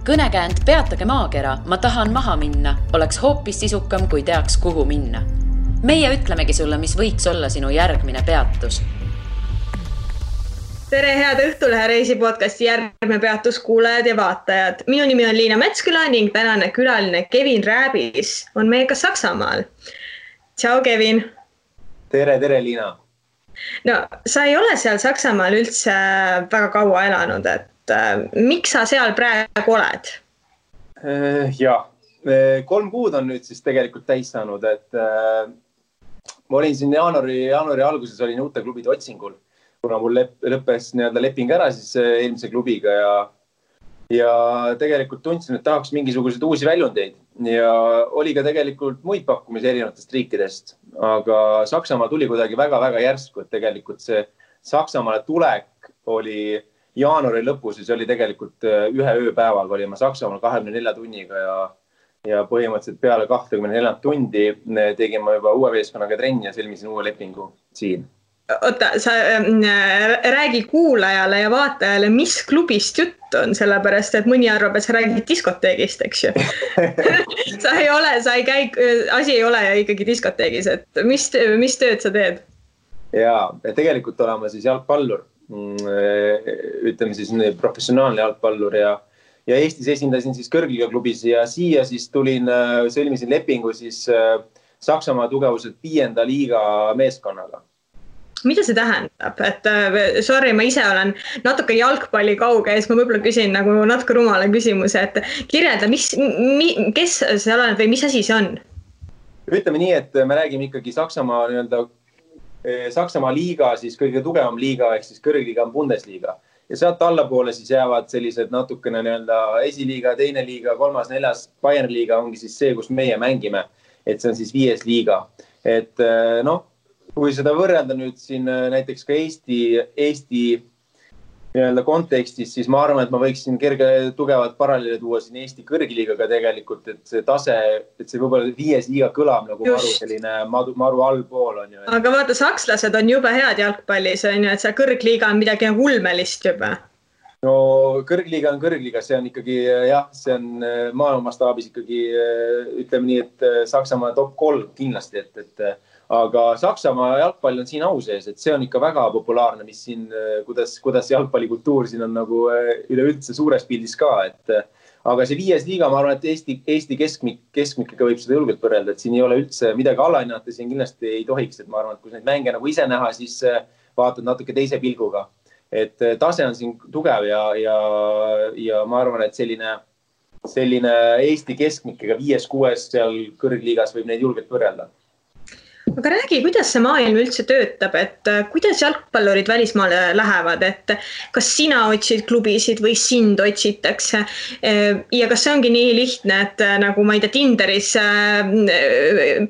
Kõnekäänd Peatage maakera, ma tahan maha minna, oleks hoopis sisukam, kui teaks, kuhu minna. Meie ütlemegi sulle, mis võiks olla sinu järgmine peatus. Tere, head Õhtulehe reisi podcasti järgmine peatus kuulajad ja vaatajad. Minu nimi on Liina Metsküla ning tänane külaline Kevin Rääbis on meiega Saksamaal. Tšau, Kevin. Tere, Liina. No, sa ei ole seal Saksamaal üldse väga kaua elanud, et miks sa seal praegu oled? Jah, 3 kuud on nüüd siis tegelikult täis saanud, et ma olin siin jaanuari alguses olin uute klubide otsingul, kuna mul lõppes leping ära siis eelmise klubiga ja tegelikult tundsin, et tahaks mingisuguseid uusi väljundeid ja oli ka tegelikult muid pakkumisi erinevatest riikidest, aga Saksamaa tuli kuidagi väga-väga järsku, et tegelikult see Saksamaale tulek oli jaanuari lõpus, siis oli tegelikult ühe ööpäevaga olime Saksamaal 24 tunniga ja põhimõtteliselt peale 24 tundi tegime juba uue meeskonnaga trenni ja sõlmisin uue lepingu siin. Oota, sa räägi kuulajale ja vaatajale, mis klubist jutt on, sellepärast, et mõni arvab, et sa räägid diskoteegist, eks ju. Asi ei ole ikkagi diskoteegis, et mis tööd sa teed? Jaa, tegelikult olema siis jalgpallur, ütleme siis professionaalne jalgpallur ja Eestis esindasin siis kõrgliga klubis ja siia siis sõlmisin lepingu siis Saksamaa tugevuselt 5. liiga meeskonnaga. Mida see tähendab? Et sorry, ma ise olen natuke jalgpalli kauge ja siis ma võib-olla küsin nagu natuke rumala küsimuse, et kirjelda, kes see oled või mis asi see on? Ütleme nii, et me räägime ikkagi Saksamaa liiga, siis kõige tugevam liiga, ehk siis kõrgliga on Bundesliga. Ja sealt allapoole siis jäävad sellised natukene esiliiga, teine liiga, 3., 4. Bayern liiga ongi siis see, kus meie mängime, et see on siis 5. liiga. Et kui seda võrrelda nüüd siin näiteks ka Eesti kontekstis, siis ma arvan, et ma võiksin kerge tugevat paralleeli tuua siin Eesti kõrgliigaga tegelikult, et see tase, et see võib-olla 5. liiga kõlab nagu maru allpool on ju. Aga vaata, sakslased on juba head jalgpallis, on ju, et see kõrgliiga on midagi ulmelist juba. No kõrgliga on kõrgliga, see on ikkagi, jah, see on maailma mastaabis ikkagi, ütleme nii, et Saksamaa top 3 kindlasti, et aga Saksamaa jalgpall on siin au sees, et see on ikka väga populaarne, mis siin, kuidas jalgpallikultuur siin on nagu üleüldse suures pildis ka, aga see 5. liiga, ma arvan, et Eesti keskmikega võib seda julgelt võrrelda, et siin ei ole üldse midagi alahinnata, siin kindlasti ei tohiks, et ma arvan, et kui neid mänge nagu ise näha, siis vaatad natuke teise pilguga, et tase on siin tugev ja ma arvan, et selline Eesti keskmikega 5-6 seal kõrgliigas võib neid julgelt võrrelda. Aga räägi, kuidas see maailm üldse töötab, et kuidas jalgpallurid välismaale lähevad, et kas sina otsid klubisid või sind otsitakse ja kas see ongi nii lihtne, et nagu ma ei tea, Tinderis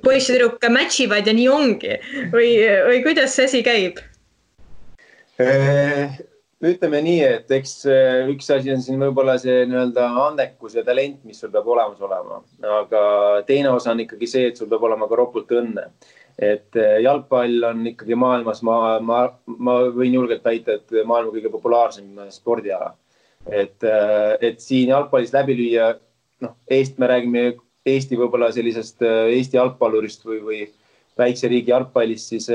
poiss ja tüdruk matchivad ja nii ongi või kuidas see asi käib? Ütleme nii, et eks üks asi on siin võib-olla see andekus ja talent, mis sul peab olemas olema, aga teine osa on ikkagi see, et sul peab olema ka ropult õnne. Et jalgpall on ikkagi maailmas, ma võin julgelt väita, et maailma kõige populaarsem spordiala. Et siin jalgpallis läbi lüüa, me räägime Eesti võib-olla sellisest Eesti jalgpallurist või väikse riigi jalgpallist siis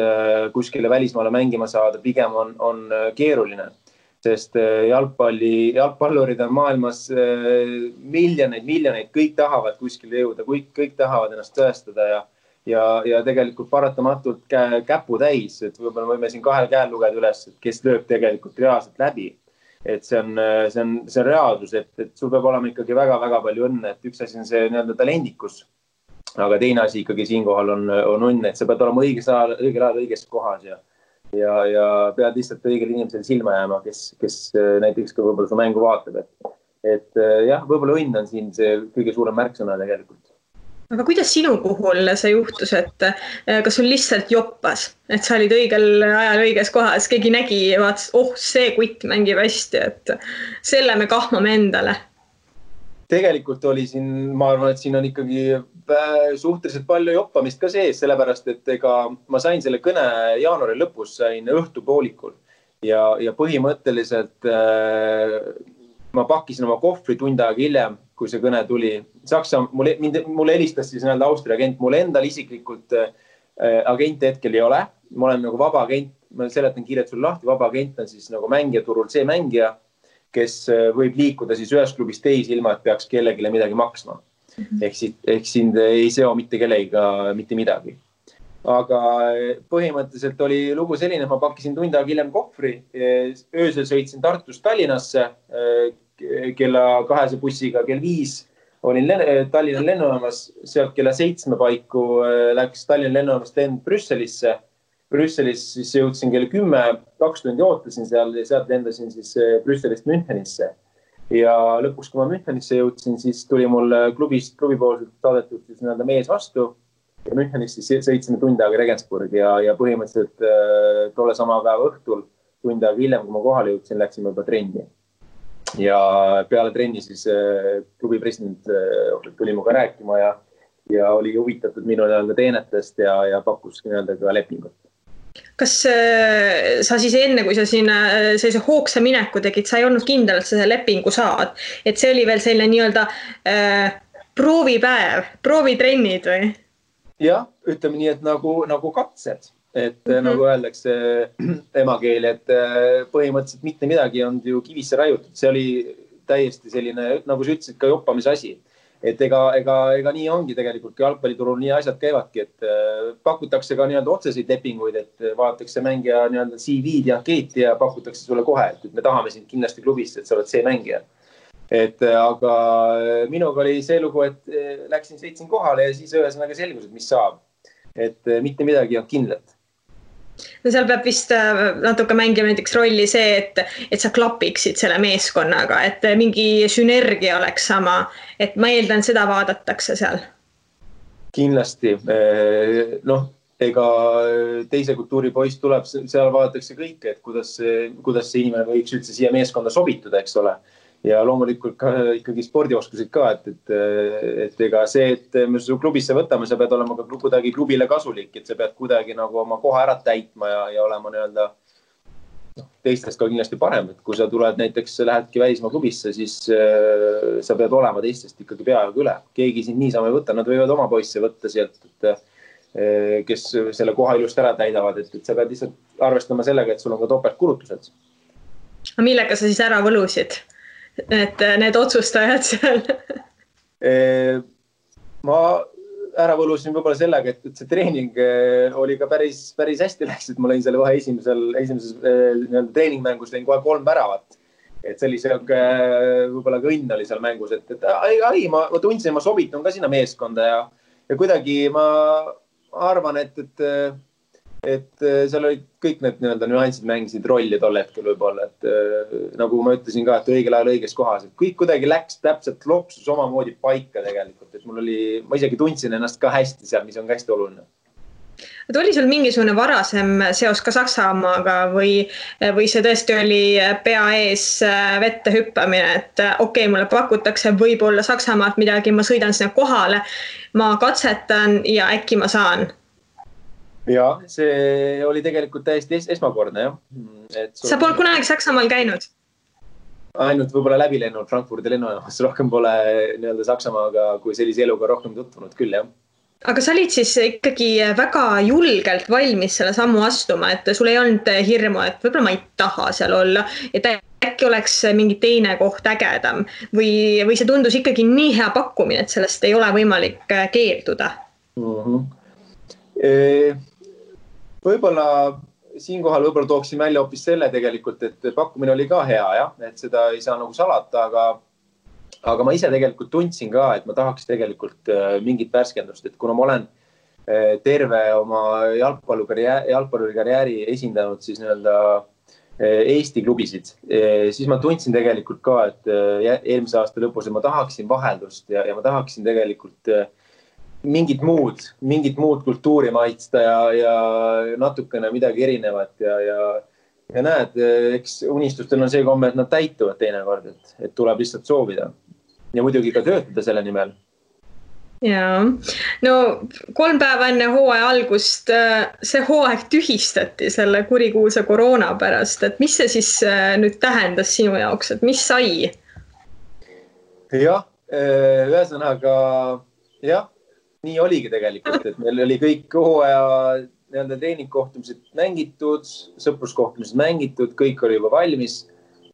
kuskile välismaale mängima saada, pigem on keeruline. Sest jalgpallurid on maailmas miljoneid, kõik tahavad kuskile jõuda, kõik tahavad ennast tõestada ja tegelikult paratamatult käpu täis, et võib-olla võime siin 2 käel lugeda üles, et kes lööb tegelikult reaalselt läbi. Et see on reaalsus, et sul peab olema ikkagi väga-väga palju õnne, et üks asi on see talendikus, aga teine asi ikkagi siinkohal on õnne, et sa pead olema õigel ajal õiges kohas ja pead lihtsalt õigel inimesel silma jääma, kes näiteks ka võib-olla su mängu vaatab. Et jah, võib-olla õnn on siin see kõige suurem märksõna tegelikult. Aga kuidas sinu puhul see juhtus, et kas sul lihtsalt joppas, et sa olid õigel ajal õiges kohas, keegi nägi ja vaatas, see kutt mängib hästi, et selle me kahmame endale? Tegelikult oli siin, ma arvan, et siin on ikkagi suhteliselt palju joppamist ka sees, sellepärast, et ma sain selle kõne jaanuari lõpus, sain õhtupoolikul ja põhimõtteliselt ma pakkisin oma kohvri tund aega hiljem, kui see kõne tuli. Mulle helistas siis Austria agent, mulle endal isiklikult agent hetkel ei ole. Ma olen nagu vaba agent, ma seletan kiirelt sulle lahti, vaba agent on siis nagu mängijaturul see mängija, kes võib liikuda siis ühest klubist teisi ilma, et peaks kellegile midagi maksma. Ehk sind ei seo mitte kellegiga mitte midagi. Aga põhimõtteliselt oli lugu selline, ma pakkisin tund aega hiljem kohvri, öösel sõitsin Tartust Tallinnasse, kella 2 bussiga, kell 5 olin Tallinna lennujaamas, sealt kella 7 paiku läks Tallinna lennujaamas lend Brüsselisse. Brüsselis siis jõudsin kell 10, 2 tundi ootasin seal ja sealt lendasin siis Brüsselist Münchenisse. Ja lõpuks, kui ma Münchenisse jõudsin, siis tuli mul klubipoolselt saadetud siis mees vastu ja Münchenisse sõitsime tund aega Regensburg ja põhimõtteliselt tolle sama päeva õhtul tund aega hiljem, kui ma kohale jõudsin, läksime juba trenni. Ja peale trenni siis klubi president tuli muga rääkima ja oli huvitatud minu teenetest ja pakkus ka lepingut. Kas sa siis enne, kui sa siin sellise hoogsa mineku tegid, sa ei olnud kindel, et sa selle lepingu saad? Et see oli veel selline nii-öelda proovipäev, proovitrennid või? Jah, ütleme nii, et nagu katsed. Et nagu öeldakse emakeeli, et põhimõtteliselt mitte midagi on ju kivisse raiutud. See oli täiesti selline, nagu sa ütlesid, ka joppamise asi. Et ega nii ongi tegelikult, kui jalgpalliturul nii asjad käivadki, et pakutakse ka otseseid lepinguid, et vaadatakse mängija CV-d ja ankeeti ja pakutakse sulle kohe, et me tahame sind kindlasti klubist, et sa oled see mängija. Aga minuga oli see lugu, et sõitsin kohale ja siis ühesõnaga selgus, et mis saab. Et mitte midagi on kindlat. No seal peab vist natuke mängima näiteks rolli see, et sa klapiksid selle meeskonnaga, et mingi sünergia oleks sama, et ma eeldan, seda vaadatakse seal. Kindlasti. Ega teise kultuuri poiss tuleb, seal vaadatakse kõike, et kuidas see inimene võiks üldse siia meeskonda sobituda, eks ole. Ja loomulikult ka ikkagi spordioskused ka, et ega see, et me su klubisse võtame, sa pead olema ka kuidagi klubile kasulik, et sa pead kuidagi nagu oma koha ära täitma ja olema teistest ka kindlasti parem, et kui sa tuled näiteks, lähedki välismaa klubisse, siis sa pead olema teistest ikkagi peaaegu üle. Keegi sind niisama ei võtta, nad võivad oma poisse võtta sealt, kes selle koha ilust ära täidavad, et sa pead lihtsalt arvestama sellega, et sul on ka topeltkulutused. Millega sa siis ära võlusid? Et need otsustajad seal? Ma ära võlusin võib-olla sellega, et see treening oli ka päris hästi läks, et ma lõin selle kohe esimeses treeningmängus lõin kohe 3 väravat. Et see oli võib-olla ka õnn oli seal mängus, et ma tundsin, ma sobitun ka sinna meeskonda ja kuidagi ma arvan, et seal olid kõik need nüansid mängisid rolli tol hetkel võib-olla, et nagu ma ütlesin ka, et õigel ajal õiges kohas, et kõik kuidagi läks täpselt lopsus omamoodi paika tegelikult, et ma isegi tundsin ennast ka hästi seal, mis on ka hästi oluline. Et oli sul mingisugune varasem seos ka Saksamaaga või see tõesti oli pea ees vette hüppamine, et okei, mulle pakutakse võib-olla Saksamaalt midagi, ma sõidan sinna kohale, ma katsetan ja äkki ma saan? Ja, see oli tegelikult täiesti esmakordne, jah. Sa polnud kunagi Saksamaal käinud? Ainult võib-olla läbi lennud Frankfurdi lennujaamas, rohkem pole Saksamaaga kui sellise eluga rohkem tutvunud küll, jah. Aga sa olid siis ikkagi väga julgelt valmis selle sammu astuma, et sul ei olnud hirmu, et võib-olla ma ei taha seal olla, et äkki oleks mingi teine koht ägedam või see tundus ikkagi nii hea pakkumine, et sellest ei ole võimalik keelduda? Võib-olla siinkohal tooksin välja hoopis selle tegelikult, et pakkumine oli ka hea, jah, et seda ei saa nagu salata, aga ma ise tegelikult tundsin ka, et ma tahaks tegelikult mingit värskendust, et kuna ma olen terve oma jalgpallikarjääri esindanud siis Eesti klubisid, siis ma tundsin tegelikult ka, et eelmise aasta lõpus ma tahaksin vaheldust ja ma tahaksin tegelikult mingit muud kultuuri maitsta ja natukene midagi erinevat ja näed, eks unistustel on see komme, et nad täituvad teinekord, et tuleb lihtsalt soovida ja muidugi ka töötada selle nimel. Jaa, no 3 päeva enne hooaja algust see hooaeg tühistati selle kurikuulsa koroona pärast, et mis see siis nüüd tähendas sinu jaoks, et mis sai? jah, ühesõnaga jah, nii oligi tegelikult, et meil oli kõik hooaja nii-öelda treeningkohtumised mängitud, sõpruskohtumised mängitud, kõik oli juba valmis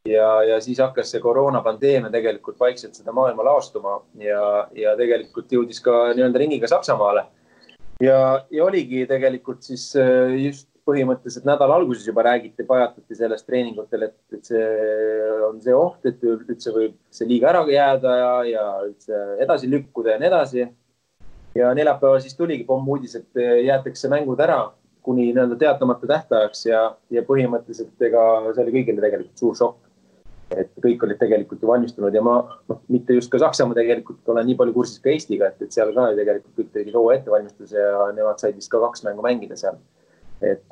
ja siis hakkas see koroonapandeemia tegelikult vaikselt seda maailma laastuma ja tegelikult jõudis ka nii-öelda ringiga Saksamaale. Ja oligi tegelikult siis just põhimõtteliselt nädala alguses juba räägiti, pajatati sellest treeningutel, et see on see oht, et üldse võib see liiga ära jääda ja üldse edasi lükkuda ja nii edasi. Ja neljapäeval siis tuligi pommuudis, et jäetakse mängud ära kuni nii-öelda teatamata tähtajaks ja põhimõtteliselt ega see oli kõigile tegelikult suur šokk. Et kõik olid tegelikult ju valmistunud ja ma mitte just ka Saksamaa tegelikult olen nii palju kursis ka Eestiga, et seal ka tegelikult kõik tegid hooaja ettevalmistuse ja nemad said vist ka 2 mängu mängida seal. Et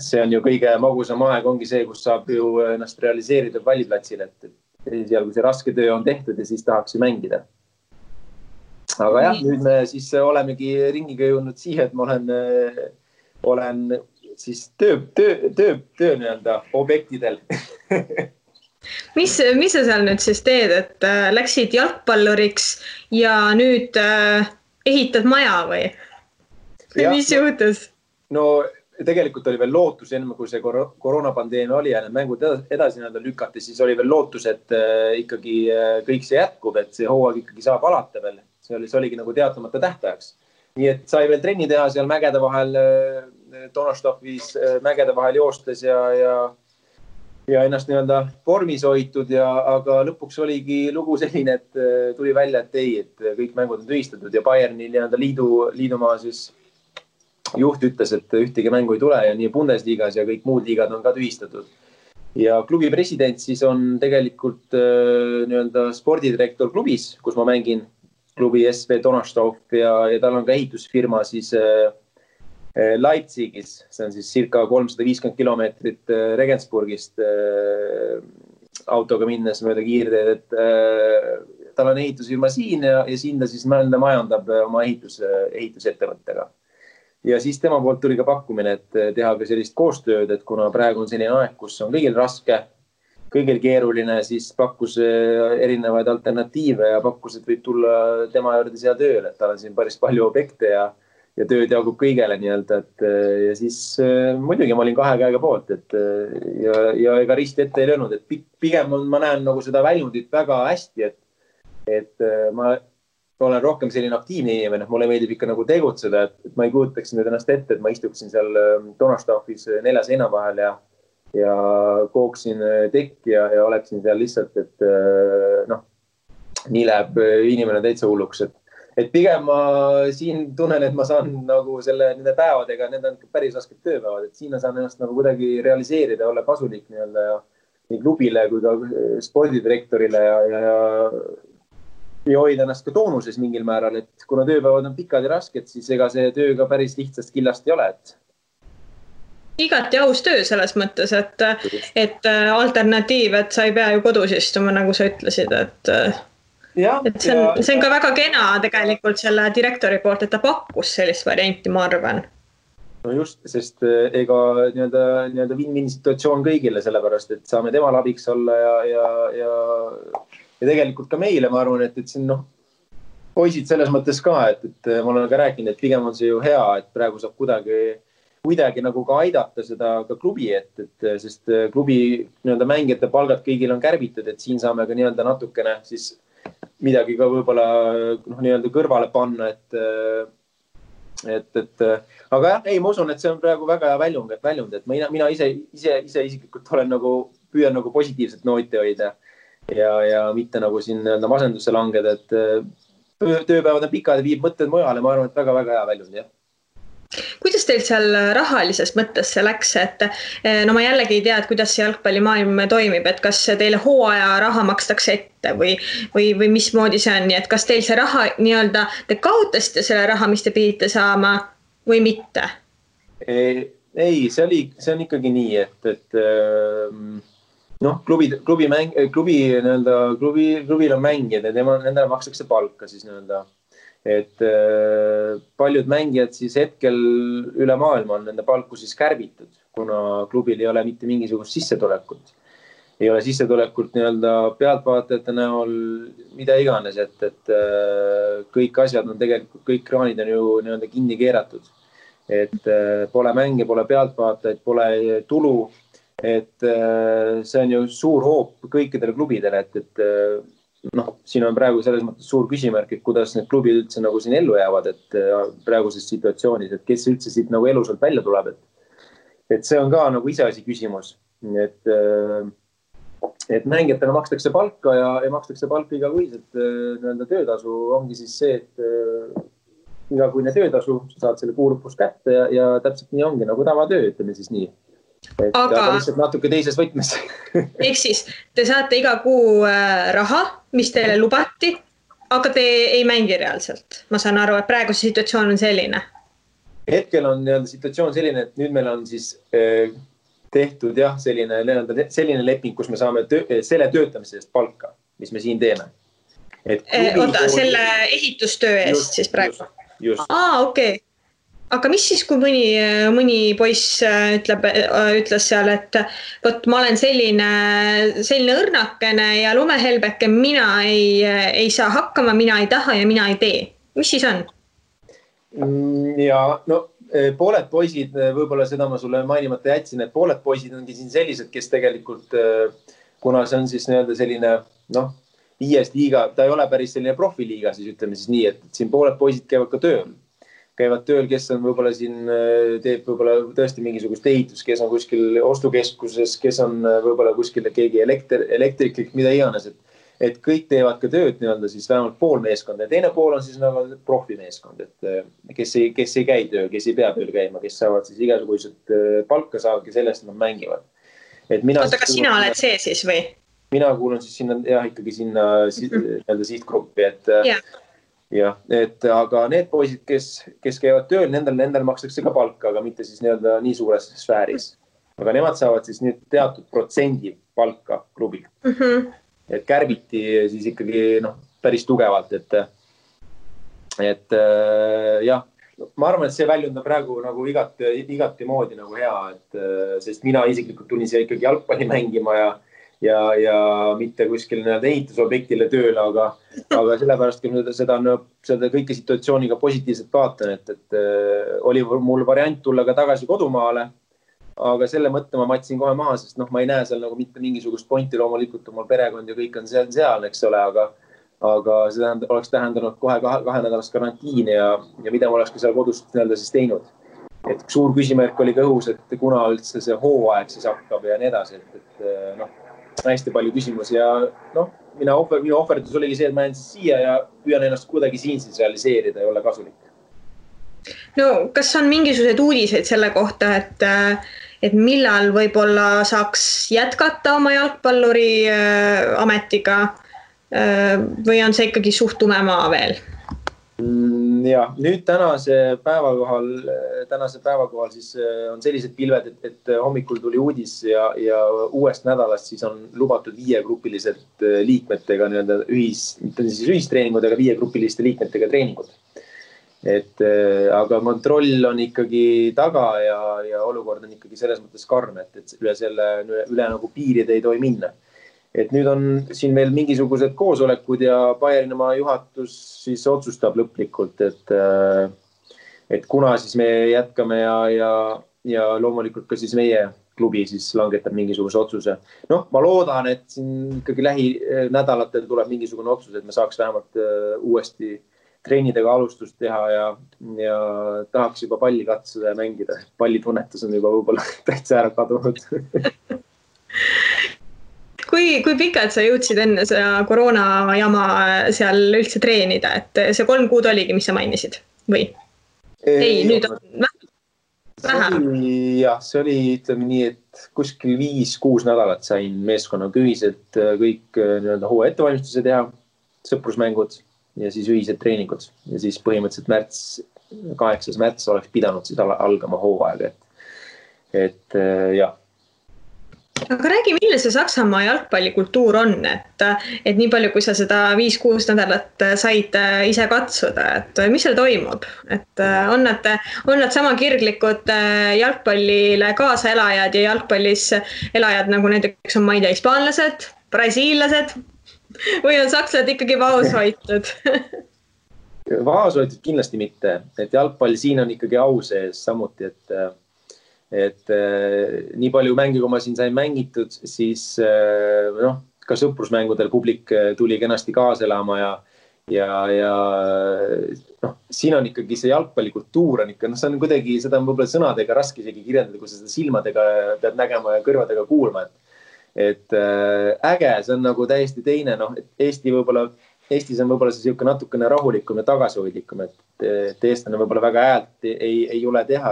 see on ju kõige magusam aeg ongi see, kus saab ju ennast realiseerida valliplatsile, et seal kui see raske töö on tehtud ja siis tahaks ju mängida. Aga jah, nüüd me siis olemegi ringiga jõudnud siia, et ma olen siis töö nii-öelda objektidel. Mis sa seal nüüd siis teed, et läksid jalgpalluriks ja nüüd ehitad maja või? Mis juhtus? No tegelikult oli veel lootus enne, kui see koroonapandeemia oli ja need mängud edasi lükati, siis oli veel lootus, et ikkagi kõik see jätkub, et see hooaeg ikkagi saab alata veel. See oligi nagu teatamata tähtajaks. Nii et sai veel trenni teha seal mägede vahel, Donnerstofis mägede vahel joostes ja ennast nii-öelda vormis hoitud, aga lõpuks oligi lugu selline, et tuli välja, et ei, et kõik mängud on tühistatud ja Bayerni nii-öelda liidumaa siis juht ütles, et ühtegi mängu ei tule ja nii Bundesligas ja kõik muud liigad on ka tühistatud. Ja klubi president siis on tegelikult nii-öelda spordidirektor klubis, kus ma mängin klubi SV Donnerstoff ja tal on ka ehitusfirma siis Leipzigis, see on siis circa 350 kilomeetrit Regensburgist autoga minnes mööda kiirteed, et tal on ehitusfirma siin ja siin ta siis majandab oma ehitusettevõttega. Ja siis tema poolt tuli ka pakkumine, et teha ka sellist koostööd, et kuna praegu on selline aeg, kus on kõigil raske, kõigil keeruline, siis pakkus erinevaid alternatiive ja pakkus, et võib tulla tema juurde siia tööle, et tal on siin päris palju objekte ja tööd jagub kõigele nii-öelda, ja siis muidugi ma olin 2 käega poolt, ja ega risti ette ei löönud, et pigem ma näen nagu seda väljundit väga hästi, et ma olen rohkem selline aktiivne inimene, mulle meeldib ikka nagu tegutseda, et ma ei kujutaks nüüd ennast ette, et ma istuksin seal Donnerstoffis 4 seina vahel ja kooksin tekki ja oleksin seal lihtsalt, et nii läheb inimene täitsa hulluks, et pigem ma siin tunnen, et ma saan nagu nende päevadega, need on päris rasked tööpäevad, et siin ma saan ennast nagu kuidagi realiseerida, olla kasulik nii-öelda nii klubile kui ka spordidirektorile ja hoida ennast ka toonuses mingil määral, et kuna tööpäevad on pikad ja rasked, siis ega see töö ka päris lihtsast killast ei ole, et igati aus töö selles mõttes, et alternatiiv, et sa ei pea ju kodus istuma, nagu sa ütlesid, et see on ka väga kena tegelikult selle direktori poolt, et ta pakkus sellist varianti, ma arvan. No just, sest ega nii-öelda win-win situatsioon kõigile sellepärast, et saame temal abiks olla ja tegelikult ka meile, ma arvan, et siin poisid selles mõttes ka, et ma olen ka rääkinud, et pigem on see ju hea, et praegu saab kuidagi nagu ka aidata seda ka klubi, sest klubi nii-öelda mängijate palgad kõigil on kärbitud, et siin saame ka nii-öelda natukene siis midagi ka võib-olla nii-öelda kõrvale panna, aga jah, ei, ma usun, et see on praegu väga hea väljund, et mina ise isiklikult püüan nagu positiivset nooti hoida ja mitte nagu siin masendusse langeda, et tööpäevad on pikad ja viib mõtted mujale, ma arvan, et väga-väga hea väljund, jah. Kuidas teil seal rahalises mõttes see läks, et ma jällegi ei tea, et kuidas see jalgpallimaailm toimib, et kas teile hooaja raha makstakse ette või mismoodi see on, et kas teil see raha nii-öelda, te kaotasite selle raha, mis te pidite saama või mitte? Ei, see on ikkagi nii, et klubil on mängijad ja nendele makstakse palka siis nii-öelda. Et paljud mängijad siis hetkel üle maailma on nende palku siis kärbitud, kuna klubil ei ole mitte mingisugust sissetulekut. ei ole sissetulekut nii-öelda pealtvaatajate näol, mida iganes, et kõik asjad on tegelikult, kõik kraanid on ju nii-öelda kinni keeratud. Et pole mänge, pole pealtvaatajaid, pole tulu, et see on ju suur hoop kõikidele klubidele, et siin on praegu selles mõttes suur küsimärk, et kuidas need klubid üldse nagu siin ellu jäävad, et praeguses situatsioonis, et kes üldse siit nagu elusalt välja tuleb, et see on ka nagu iseasi küsimus, et mängijatele makstakse palka ja makstakse palka igakuiselt nii-öelda töötasu ongi siis see, et igakuine töötasu, sa saad selle kuu lõpus kätte ja täpselt nii ongi nagu tavatöö, ütleme siis nii. Aga lihtsalt natuke teises võtmes. Ehk siis te saate iga kuu raha, mis teile lubati, aga te ei mängi reaalselt. Ma saan aru, et praegu see situatsioon on selline. Hetkel on situatsioon selline, et nüüd meil on siis tehtud jah, selline leping, kus me saame selle töötamise eest palka, mis me siin teeme. Oota, selle ehitustöö eest siis praegu? Just. Okei. Aga mis siis, kui mõni poiss ütles seal, et võt, ma olen selline õrnakene ja lumehelbeke, mina ei saa hakkama, mina ei taha ja mina ei tee. Mis siis on? Ja pooled poisid, võib-olla seda ma sulle mainimata jätsin, et pooled poisid ongi siin sellised, kes tegelikult, kuna see on siis nii-öelda selline, viies liiga, ta ei ole päris selline profiliiga, siis ütleme siis nii, et siin pooled poisid käivad ka tööl. Käivad tööl, kes on võib-olla siin, teeb võib-olla tõesti mingisugust ehitus, kes on kuskil ostukeskuses, kes on võib-olla kuskil keegi elektriklik, mida iganes, et kõik teevad ka tööd nii-öelda siis vähemalt pool meeskond ja teine pool on siis nagu profimeeskond, et kes ei käi tööl, kes ei pea tööl käima, kes saavad siis igasugused palka saavadki sellest, et nad mängivad. Oota, kas sina oled see siis või? Mina kuulun siis sinna, ikkagi sinna sihtgruppi, et aga need poisid, kes käivad tööl, nendel makstakse ka palka, aga mitte siis nii suures sfääris. Aga nemad saavad siis nüüd teatud protsendi palka klubilt. Et kärbiti siis ikkagi päris tugevalt, et jah, ma arvan, et see väljund on praegu nagu igati moodi nagu hea, sest mina isiklikult tulin siia ikkagi jalgpalli mängima ja mitte kuskil ehitusobjektile tööle, aga sellepärast, kui seda kõike situatsiooniga positiivselt vaatan, et oli mul variant tulla ka tagasi kodumaale, aga selle mõtte ma matsin kohe maha, sest ma ei näe seal nagu mitte mingisugust pointi, loomulikult mul perekond ja kõik on seal, eks ole, aga see oleks tähendanud kohe 2 nädalast karantiini ja mida ma oleks ka seal kodust siis teinud. Et suur küsimärk oli ka õhus, et kuna üldse see hooaeg siis hakkab ja nii edasi, et hästi palju küsimusi ja minu ohverdus oligi see, et ma jään siis siia ja püüan ennast kuidagi siin siis realiseerida ja olla kasulik. Kas on mingisugused uudised selle kohta, et millal võib-olla saaks jätkata oma jalgpalluri ametiga või on see ikkagi suht tume maa veel? Ja nüüd tänase päeva kohal siis on sellised pilved, et hommikul tuli uudis ja uuest nädalast siis on lubatud 5-grupilised liikmetega mitte siis ühistreeningud, aga 5-grupiliste liikmetega treeningud. Aga kontroll on ikkagi taga ja olukord on ikkagi selles mõttes karm, et üle nagu piiride ei tohi minna. Et nüüd on siin meil mingisugused koosolekud ja Bayernimaa juhatus siis otsustab lõplikult, et kuna siis me jätkame ja loomulikult ka siis meie klubi siis langetab mingisuguse otsuse. Ma loodan, et siin ikkagi lähinädalatel tuleb mingisugune otsus, et me saaks vähemalt uuesti treenidega alustust teha ja tahaks juba palli katsuda ja mängida. Pallitunnetus on juba võib-olla täitsa ära kadunud. Kui pikalt sa jõudsid enne seda koroona jama seal üldse treenida, et see 3 kuud oligi, mis sa mainisid? Või? Ei, nüüd on vähem. Jah, see oli ütleme nii, et kuskil 5-6 nädalat sain meeskonnaga ühiselt kõik hooaja ettevalmistuse teha, sõprusmängud ja siis ühised treeningud. Ja siis põhimõtteliselt 8. märts oleks pidanud siis algama hooaega. Et jah. Aga räägi, milline see Saksamaa jalgpallikultuur on, et nii palju, kui sa seda 5-6 nädalat said ise katsuda, et mis seal toimub, et on nad sama kirglikud jalgpallile kaasaelajad ja jalgpallis elajad nagu näiteks on, ma ei tea, hispaanlased, brasiillased või on sakslased ikkagi vaoshoitud? Vaoshoitud kindlasti mitte, et jalgpall siin on ikkagi au sees samuti, et nii palju mänge, kui ma siin sain mängitud, siis ka sõprusmängudel publik tuli kenasti kaasa elama ja siin on ikkagi see jalgpallikultuur on ikka, see on kuidagi, seda on võib-olla sõnadega raske isegi kirjeldada, kui sa seda silmadega pead nägema ja kõrvadega kuulma, et äge, see on nagu täiesti teine, Eestis on võib-olla see siuke natukene rahulikum ja tagasihoidlikum, et eestlane võib-olla väga häält ei jule teha,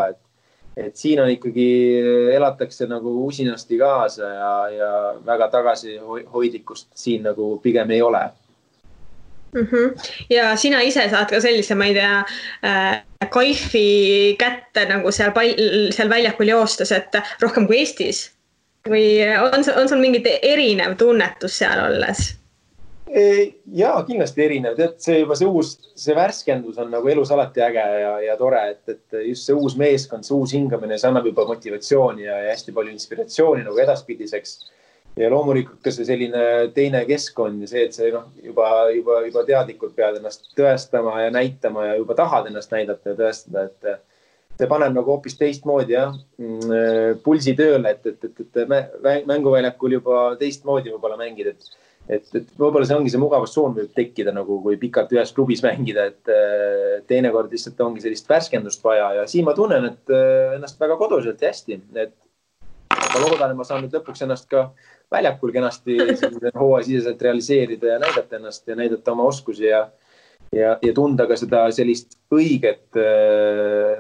et siin on ikkagi, elatakse nagu usinasti kaasa ja väga tagasihoidlikkust siin nagu pigem ei ole. Ja sina ise saad ka sellise, ma ei tea, kaifi kätte nagu seal väljakul joostes, et rohkem kui Eestis? Või on sul mingit erinev tunnetus seal olles? Jaa, kindlasti erinev. See värskendus on nagu elus alati äge ja tore, et just see uus meeskond, see uus hingamine, see annab juba motivatsiooni ja hästi palju inspiratsiooni nagu edaspidiseks. Ja loomulikult ka see selline teine keskkond ja see, et see juba teadlikult pead ennast tõestama ja näitama ja juba tahad ennast näidata ja tõestada, et see paneb nagu hoopis teistmoodi pulsi tööle, et mänguväljakul juba teistmoodi võib-olla mängida, et võib-olla see ongi see mugavustsoon võib tekkida nagu, kui pikalt ühes klubis mängida, et teinekord lihtsalt ongi sellist värskendust vaja ja siin ma tunnen, et ennast väga koduselt ja hästi, et ma loodan, et ma saan nüüd lõpuks ennast ka väljakul kenasti hooajasiseselt realiseerida ja näidata ennast ja näidata oma oskusi ja tunda ka seda sellist õiget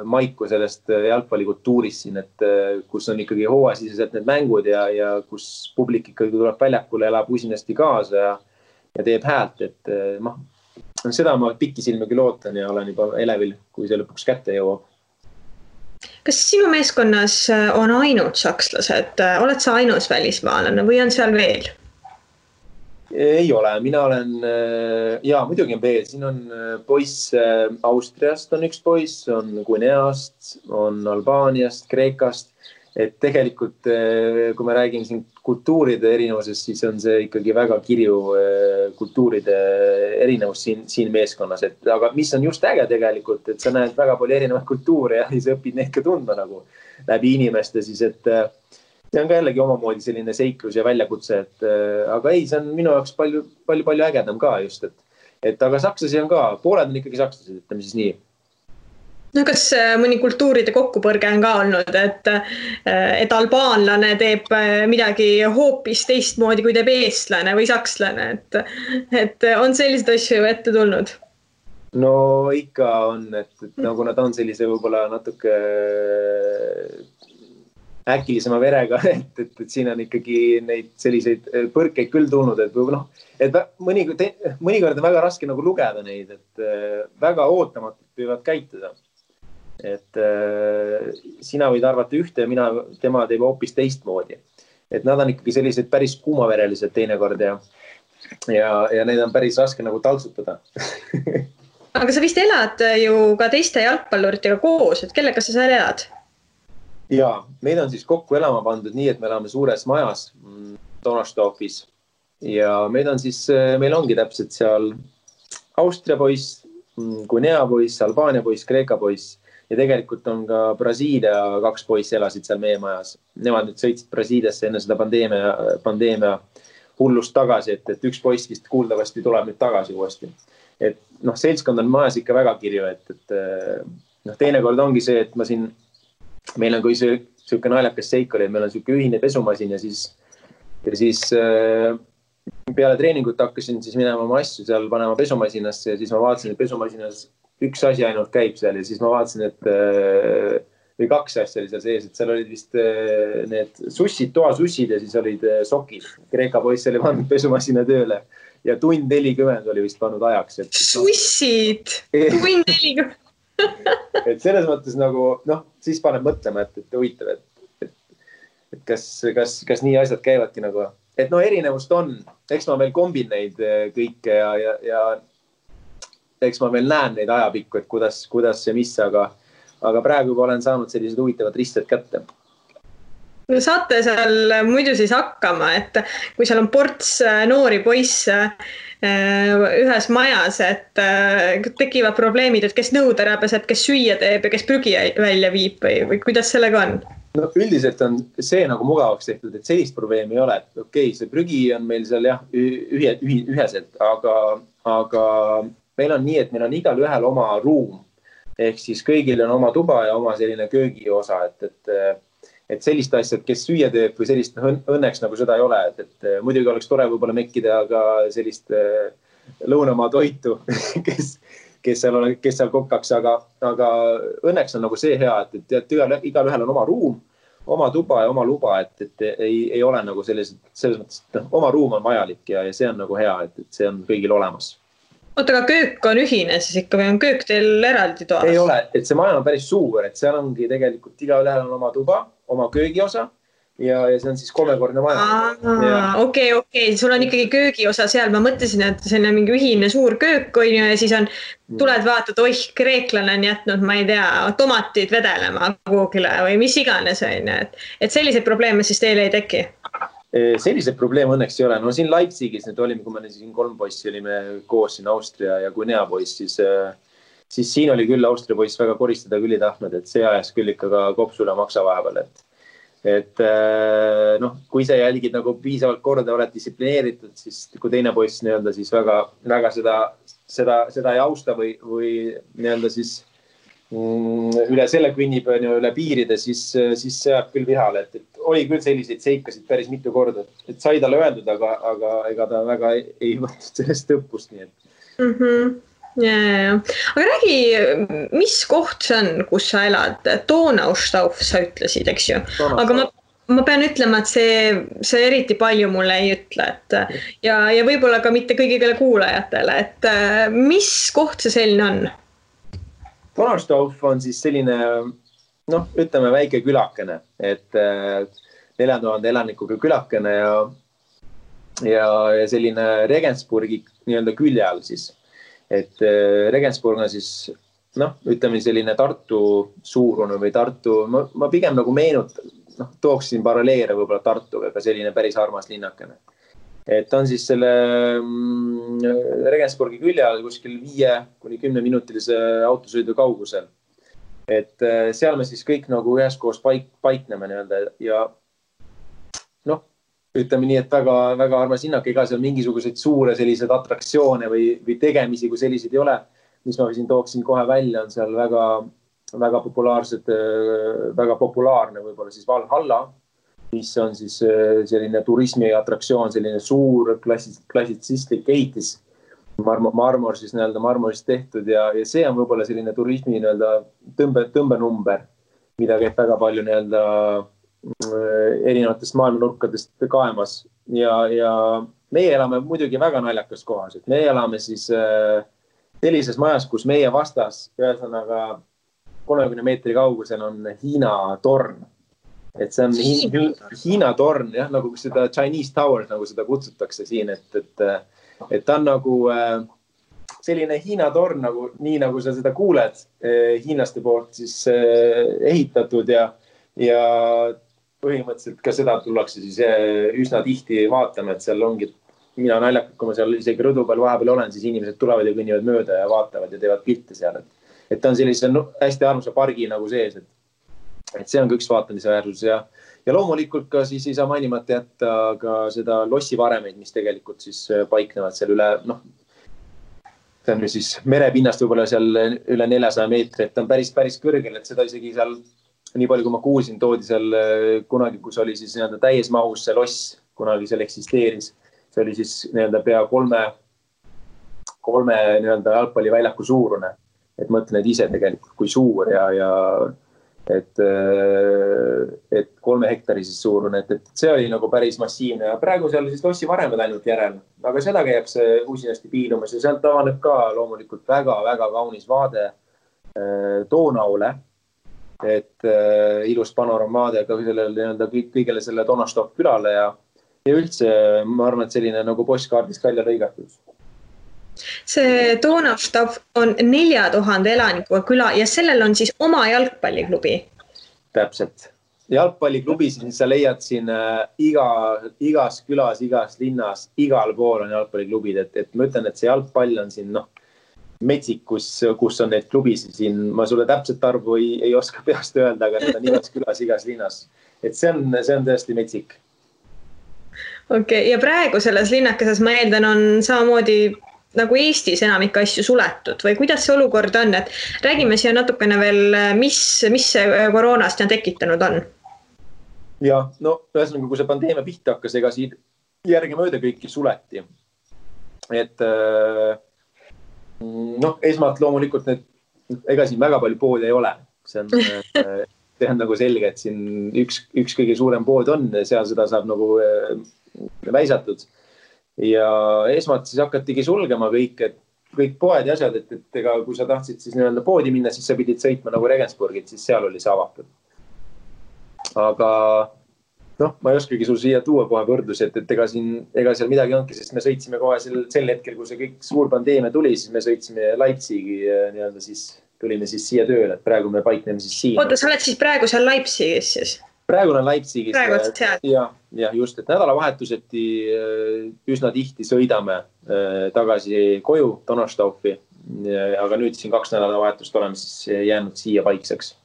maiku sellest jalgpallikultuurist siin, et kus on ikkagi hooajasiseselt need mängud ja kus publik ikkagi tuleb väljakule, elab usinasti kaasa ja teeb häält, et seda ma pikisilmagi lootan ja olen juba elevil, kui see lõpuks kätte jõuab. Kas sinu meeskonnas on ainult sakslased? Oled sa ainus välismaalane või on seal veel? Ei ole, mina olen, muidugi on veel, siin on poiss Austriast on üks poiss, on Guineast, on Albaaniast, Kreekast, et tegelikult kui me räägime siin kultuuride erinevusest, siis on see ikkagi väga kirju kultuuride erinevus siin meeskonnas, aga mis on just äge tegelikult, et sa näed väga palju erinevaid kultuure ja sa õpid neid ka tundma nagu läbi inimeste, siis et see on ka jällegi omamoodi selline seiklus ja väljakutse, aga ei, see on minu jaoks palju ägedam ka just, et aga sakslasi on ka, pooled on ikkagi sakslased, ütleme siis nii. No kas mõni kultuuride kokkupõrge on ka olnud, et albaanlane teeb midagi hoopis teistmoodi, kui teeb eestlane või sakslane, et on sellised asju ette tulnud? No ikka on, et nagu nad on sellise võib-olla natuke äkilisema verega, et siin on ikkagi neid selliseid põrkeid küll tulnud, et mõnikord on väga raske nagu lugeda neid, et väga ootamatult võivad käituda. Et sina võid arvata ühte ja tema teeb hoopis teistmoodi. Et nad on ikkagi sellised päris kuumaverelised teinekord ja neid on päris raske nagu taltsutada. Aga sa vist elad ju ka teiste jalgpalluritega koos, et kellega sa seal elad? Jaa, meid on siis kokku elama pandud nii, et me elame suures majas Donnerstofis ja meil ongi täpselt seal Austria poiss, Guinea poiss, Albaania poiss, Kreeka poiss ja tegelikult on ka Brasiilia 2 poissi elasid seal meie majas. Nemad nüüd sõitsid Brasiiliasse enne seda pandeemia hullust tagasi, et üks poiss vist kuuldavasti tuleb nüüd tagasi uuesti. Et seltskond on majas ikka väga kirju, et teinekord ongi see, et meil on kui siuke naljakas seik oli, et meil on siuke ühine pesumasin ja siis peale treeningut hakkasin siis minema oma asju seal panema pesumasiinasse ja siis ma vaatasin, et pesumasiinas üks asi ainult käib seal ja siis ma vaatasin, või 2 asja oli seal sees, et seal olid vist need sussid, toasussid ja siis olid sokid. Kreeka poiss oli pannud pesumasina tööle ja tund 40 oli vist pannud ajaks. Sussid! Tund 40! Et selles mõttes nagu, siis paneb mõtlema, et huvitav, et kas nii asjad käivadki nagu, et no erinevust on, eks ma veel kombin neid kõike ja eks ma veel näen neid ajapikku, et kuidas see mis, aga praegu juba olen saanud sellised huvitavad risted kätte. No saate seal muidu siis hakkama, et kui seal on ports noori poisse ühes majas, et tekivad probleemid, et kes nõud ära peseb, kes süüa teeb ja kes prügi välja viib või kuidas sellega on? No üldiselt on see nagu mugavaks tehtud, et sellist probleemi ei ole, et okei, see prügi on meil seal jah üheselt, aga meil on nii, et meil on igal ühel oma ruum, ehk siis kõigil on oma tuba ja oma selline köögiosa, et sellist asjad, kes süüa teeb või sellist õnneks nagu seda ei ole, et muidugi oleks tore võib-olla mekkida ka sellist lõunamaa toitu, kes seal kokkaks, aga õnneks on nagu see hea, et igal ühel on oma ruum, oma tuba ja oma luba, et ei ole nagu selles mõttes, et oma ruum on vajalik ja see on nagu hea, et see on kõigil olemas. Oota, aga köök on ühine siis ikka või on köök teil eraldi toas? Ei ole, et see maja on päris suur, et seal ongi tegelikult igal ühel on oma tuba, oma köögiosa ja see on siis 3-kordne maja. Okei, sul on ikkagi köögiosa seal. Ma mõtlesin, et see on mingi ühine suur köök on ja siis tuled vaatad, kreeklane on jätnud, ma ei tea, tomatid vedelema kuhugile või mis iganes on. Et selliseid probleeme siis teile ei teki? Sellised probleem õnneks ei ole. No siin Leipzigis nüüd olime, kui me siin 3 poissi olime koos siin Austria ja Guinea poiss, siis siin oli küll Austria poiss väga koristada küll ei tahtnud, et see ajas küll ikka ka kopsule maksa vahepeal. Et kui sa jälgid nagu piisavalt korda, oled distsiplineeritud, siis kui teine poiss nii-öelda siis väga seda ei austa või nii-öelda siis üle selle kõnnib üle piiride, siis see jääb küll vihale, et oli küll selliseid seikasid päris mitu korda, et sai talle öeldud, aga ega ta väga ei võtnud sellest õppust, nii et. Ja. Aga räägi, mis koht see on, kus sa elad? Donaustauf sa ütlesid, eks ju? Aga ma pean ütlema, et see eriti palju mulle ei ütle, ja võib-olla ka mitte kõigile kuulajatele, et mis koht see selline on? Donaustauf on siis selline, ütleme väike külakene, et 4000 elanikuga külakene ja selline Regensburgi nii-öelda külje all siis. Et Regensburg on siis, ütleme selline Tartu suurune või Tartu, ma pigem nagu tooksin paralleele võib-olla Tartuga, aga selline päris armas linnakene. Et on siis selle Regensburgi külje all kuskil 5-10 minutilise autosõidu kaugusel. Et seal me siis kõik nagu üheskoos paikneme nii-öelda ja ütleme nii, et väga armas linnak, ega seal mingisuguseid suure sellised atraktsioone või tegemisi, kui selliseid ei ole, mis ma siin tooksin kohe välja, on seal väga populaarne võib-olla siis Valhalla, mis on siis selline turismiatraktsioon, selline suur klassitsistlik ehitis, marmor siis nii-öelda marmorist tehtud ja see on võib-olla selline turismi nii-öelda tõmbenumber, mida käib väga palju nii-öelda erinevatest maailmanurkadest kaemas ja meie elame muidugi väga naljakas kohas, et me elame siis sellises majas, kus meie vastas ühesõnaga 30 meetri kaugusel on Hiina torn. Et see on Hiina torn, jah, nagu seda Chinese Tower, nagu seda kutsutakse siin, et ta on nagu selline Hiina torn, nii nagu sa seda kuuled hiinlaste poolt siis ehitatud ja põhimõtteliselt ka seda tullakse siis üsna tihti vaatama, et seal ongi, mina naljakalt, kui ma seal isegi rõdu peal vahepeal olen, siis inimesed tulevad ja kõnnivad mööda ja vaatavad ja teevad pilte seal, et ta on sellise hästi armsa pargi nagu sees, et see on ka üks vaatamise väärsus ja loomulikult ka siis ei saa mainimata jätta ka seda lossivaremeid, mis tegelikult siis paiknevad seal üle, see on siis merepinnast võib-olla seal üle 400 meetri, et on päris kõrgel, et seda isegi seal, nii palju kui ma kuulsin, toodi seal kunagi, kus oli siis nii-öelda täies mahus see loss, kunagi seal eksisteeris, see oli siis nii-öelda pea 3 nii-öelda jalgpalliväljaku suurune, et mõtlen ise tegelikult kui suur ja et 3 hektari siis suurune, et see oli nagu päris massiivne ja praegu seal siis lossivaremed ainult järel, aga seda käiakse usinasti piilumas ja sealt avaneb ka loomulikult väga kaunis vaade Donaule et ilus panoramaade ka sellele kõigele selle Donnerstock külale ja üldse ma arvan, et selline nagu postkaardist välja lõigatud. See Donnerstock on 4000 elanikuga küla ja sellel on siis oma jalgpalliklubi. Täpselt. Jalgpalliklubi, siis sa leiad siin igas külas, igas linnas, igal pool on jalgpalliklubid, et ma ütlen, et see jalgpall on siin metsik, kus on neid klubisid siin. Ma sulle täpselt arvu ei oska peast öelda, aga need on igas külas, igas linnas. Et see on tõesti metsik. Okei, ja praegu selles linnakeses ma eeldan on samamoodi nagu Eestis enamik asju suletud või kuidas see olukord on, et räägime siia natukene veel, mis see koroonast on tekitanud on? Ja, ühesõnaga, kui see pandeemia pihta hakkas, ega siin järgemööda kõiki suleti. Et esmalt loomulikult ega siin väga palju poodi ei ole. See on nagu selge, et siin üks kõige suurem pood on, seal seda saab nagu väisatud. Ja esmalt siis hakatigi sulgema kõik poed ja asjad, et ega kui sa tahtsid siis nii-öelda poodi minna, siis sa pidid sõitma nagu Regensburgit, siis seal oli see avatud. Aga ma ei oskagi sul siia tuua kohe võrdlusi, et ega seal midagi ongi, sest me sõitsime kohe sel hetkel, kui see kõik suur pandeemia tuli, siis me sõitsime Leipzigi nii-öelda siis tulime siis siia tööle, et praegu me paikneme siis siin. Oota, sa oled siis praegu seal Leipzigis siis? Praegu olen Leipzigis. Praegu oled seal? Ja just, et nädalavahetuseti üsna tihti sõidame tagasi koju Donnerstoffi, aga nüüd siin 2 nädalavahetust oleme siis jäänud siia paikseks.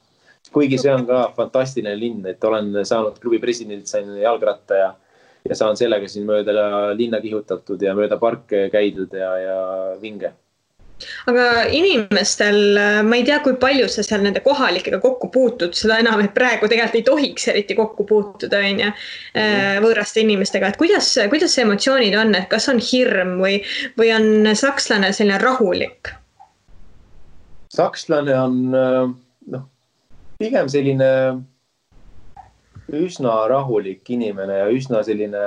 Kuigi see on ka fantastiline linn, et olen saanud klubi presidendilt, sain jalgratta ja saan sellega siin mööda linna kihutatud ja mööda parke käidud ja vinge. Aga inimestel, ma ei tea, kui palju sa seal nende kohalikega kokku puutud, seda enam, et praegu tegelikult ei tohiks eriti kokku puutuda võõraste inimestega. Et kuidas see emotsioonid on, et kas on hirm või on sakslane selline rahulik? Sakslane on pigem selline üsna rahulik inimene ja üsna selline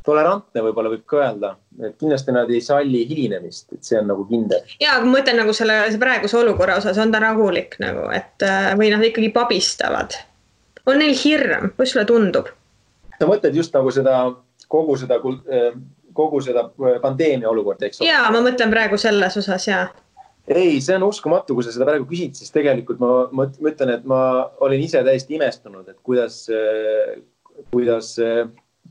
tolerantne võib-olla võib ka öelda, et kindlasti nad ei salli hilinemist, et see on nagu kindel. Ja, ma mõtlen nagu selle praeguse olukorra osas on ta rahulik nagu, et või nad ikkagi pabistavad. On neil hirm, kus sulle tundub? Sa mõtled just nagu kogu seda pandeemia olukord, eks? Ja, ma mõtlen praegu selles osas, ja. Ei, see on uskumatu, kui sa seda praegu küsid, siis tegelikult ma mõtlen, et ma olin ise täiesti imestunud, et kuidas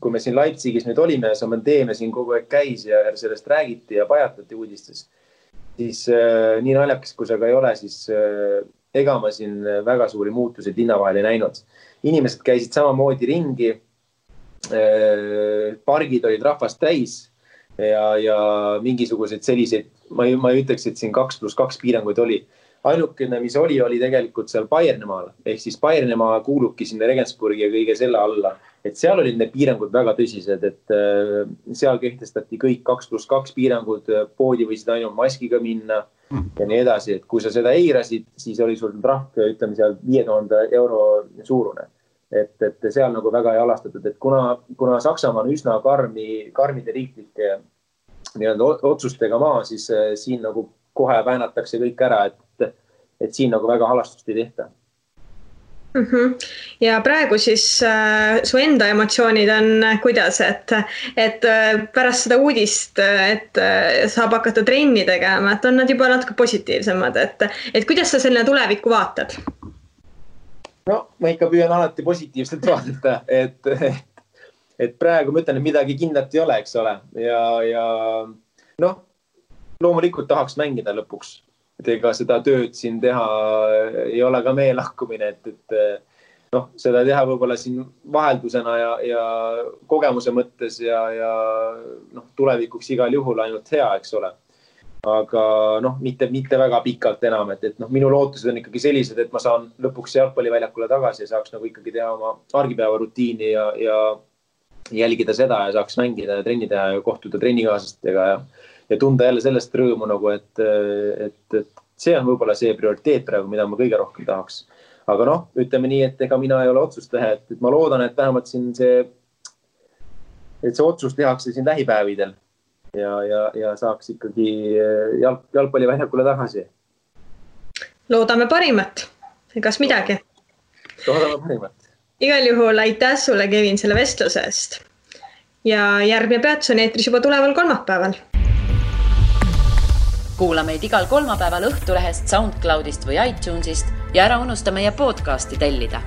kui me siin Leipzigis nüüd olime ja see pandeemia siin kogu aeg käis ja sellest räägiti ja pajatati uudistes, siis nii naljakas, kui see ka ei ole, siis ega ma siin väga suuri muutuseid linna vahel ei näinud. Inimesed käisid samamoodi ringi, pargid olid rahvast täis ja mingisugused selliseid, ma ei ütleks, et siin 2+2 piiranguid oli. Ainukene, mis oli tegelikult seal Bayernimaal, ehk siis Bayernimaa kuulubki sinna Regensburgi ja kõige selle alla. Et seal olid need piirangud väga tõsised, et seal kehtestati kõik 2+2 piirangud, poodi võisid ainult maskiga minna ja nii edasi. Et kui sa seda eirasid, siis oli sul trahv, ütleme seal 5000 euro suurune. Et seal nagu väga ei alastatud, et kuna Saksamaa on üsna karmide riiklike otsustega maa, siis siin nagu kohe väänatakse kõik ära, et siin nagu väga halastust ei tehta. Ja praegu siis su enda emotsioonid on kuidas, et pärast seda uudist, et saab hakata trenni tegema, et on nad juba natuke positiivsemad, et kuidas sa selle tulevikku vaatad? Ma ikka püüan alati positiivselt vaadata, et praegu ma ütlen, et midagi kindlat ei ole, eks ole. Ja loomulikult tahaks mängida lõpuks. Et ega seda tööd siin teha ei ole ka meie lahkumine, et seda teha võib-olla siin vaheldusena ja kogemuse mõttes ja tulevikuks igal juhul ainult hea, eks ole. Aga mitte väga pikalt enam, et minu lootused on ikkagi sellised, et ma saan lõpuks jalgpalliväljakule tagasi ja saaks nagu ikkagi teha oma argipäeva rutiini ja jälgida seda ja saaks mängida ja trenni teha ja kohtuda trennikaaslastega ja tunda jälle sellest rõõmu nagu, et see on võib-olla see prioriteet praegu, mida ma kõige rohkem tahaks. Aga ütleme nii, et ega mina ei ole otsust teha, et ma loodan, et vähemalt siin see otsus tehakse siin lähipäevidel ja saaks ikkagi jalgpalliväljakule tagasi. loodame parimat, egas midagi. Loodame parimat. Igal juhul aitäh sulle, Kevin, selle vestluse eest. Ja järgmine peatus on eetris juba tuleval kolmapäeval. Kuula meid igal kolmapäeval Õhtulehest, SoundCloudist või iTunesist ja ära unusta meie podcasti tellida.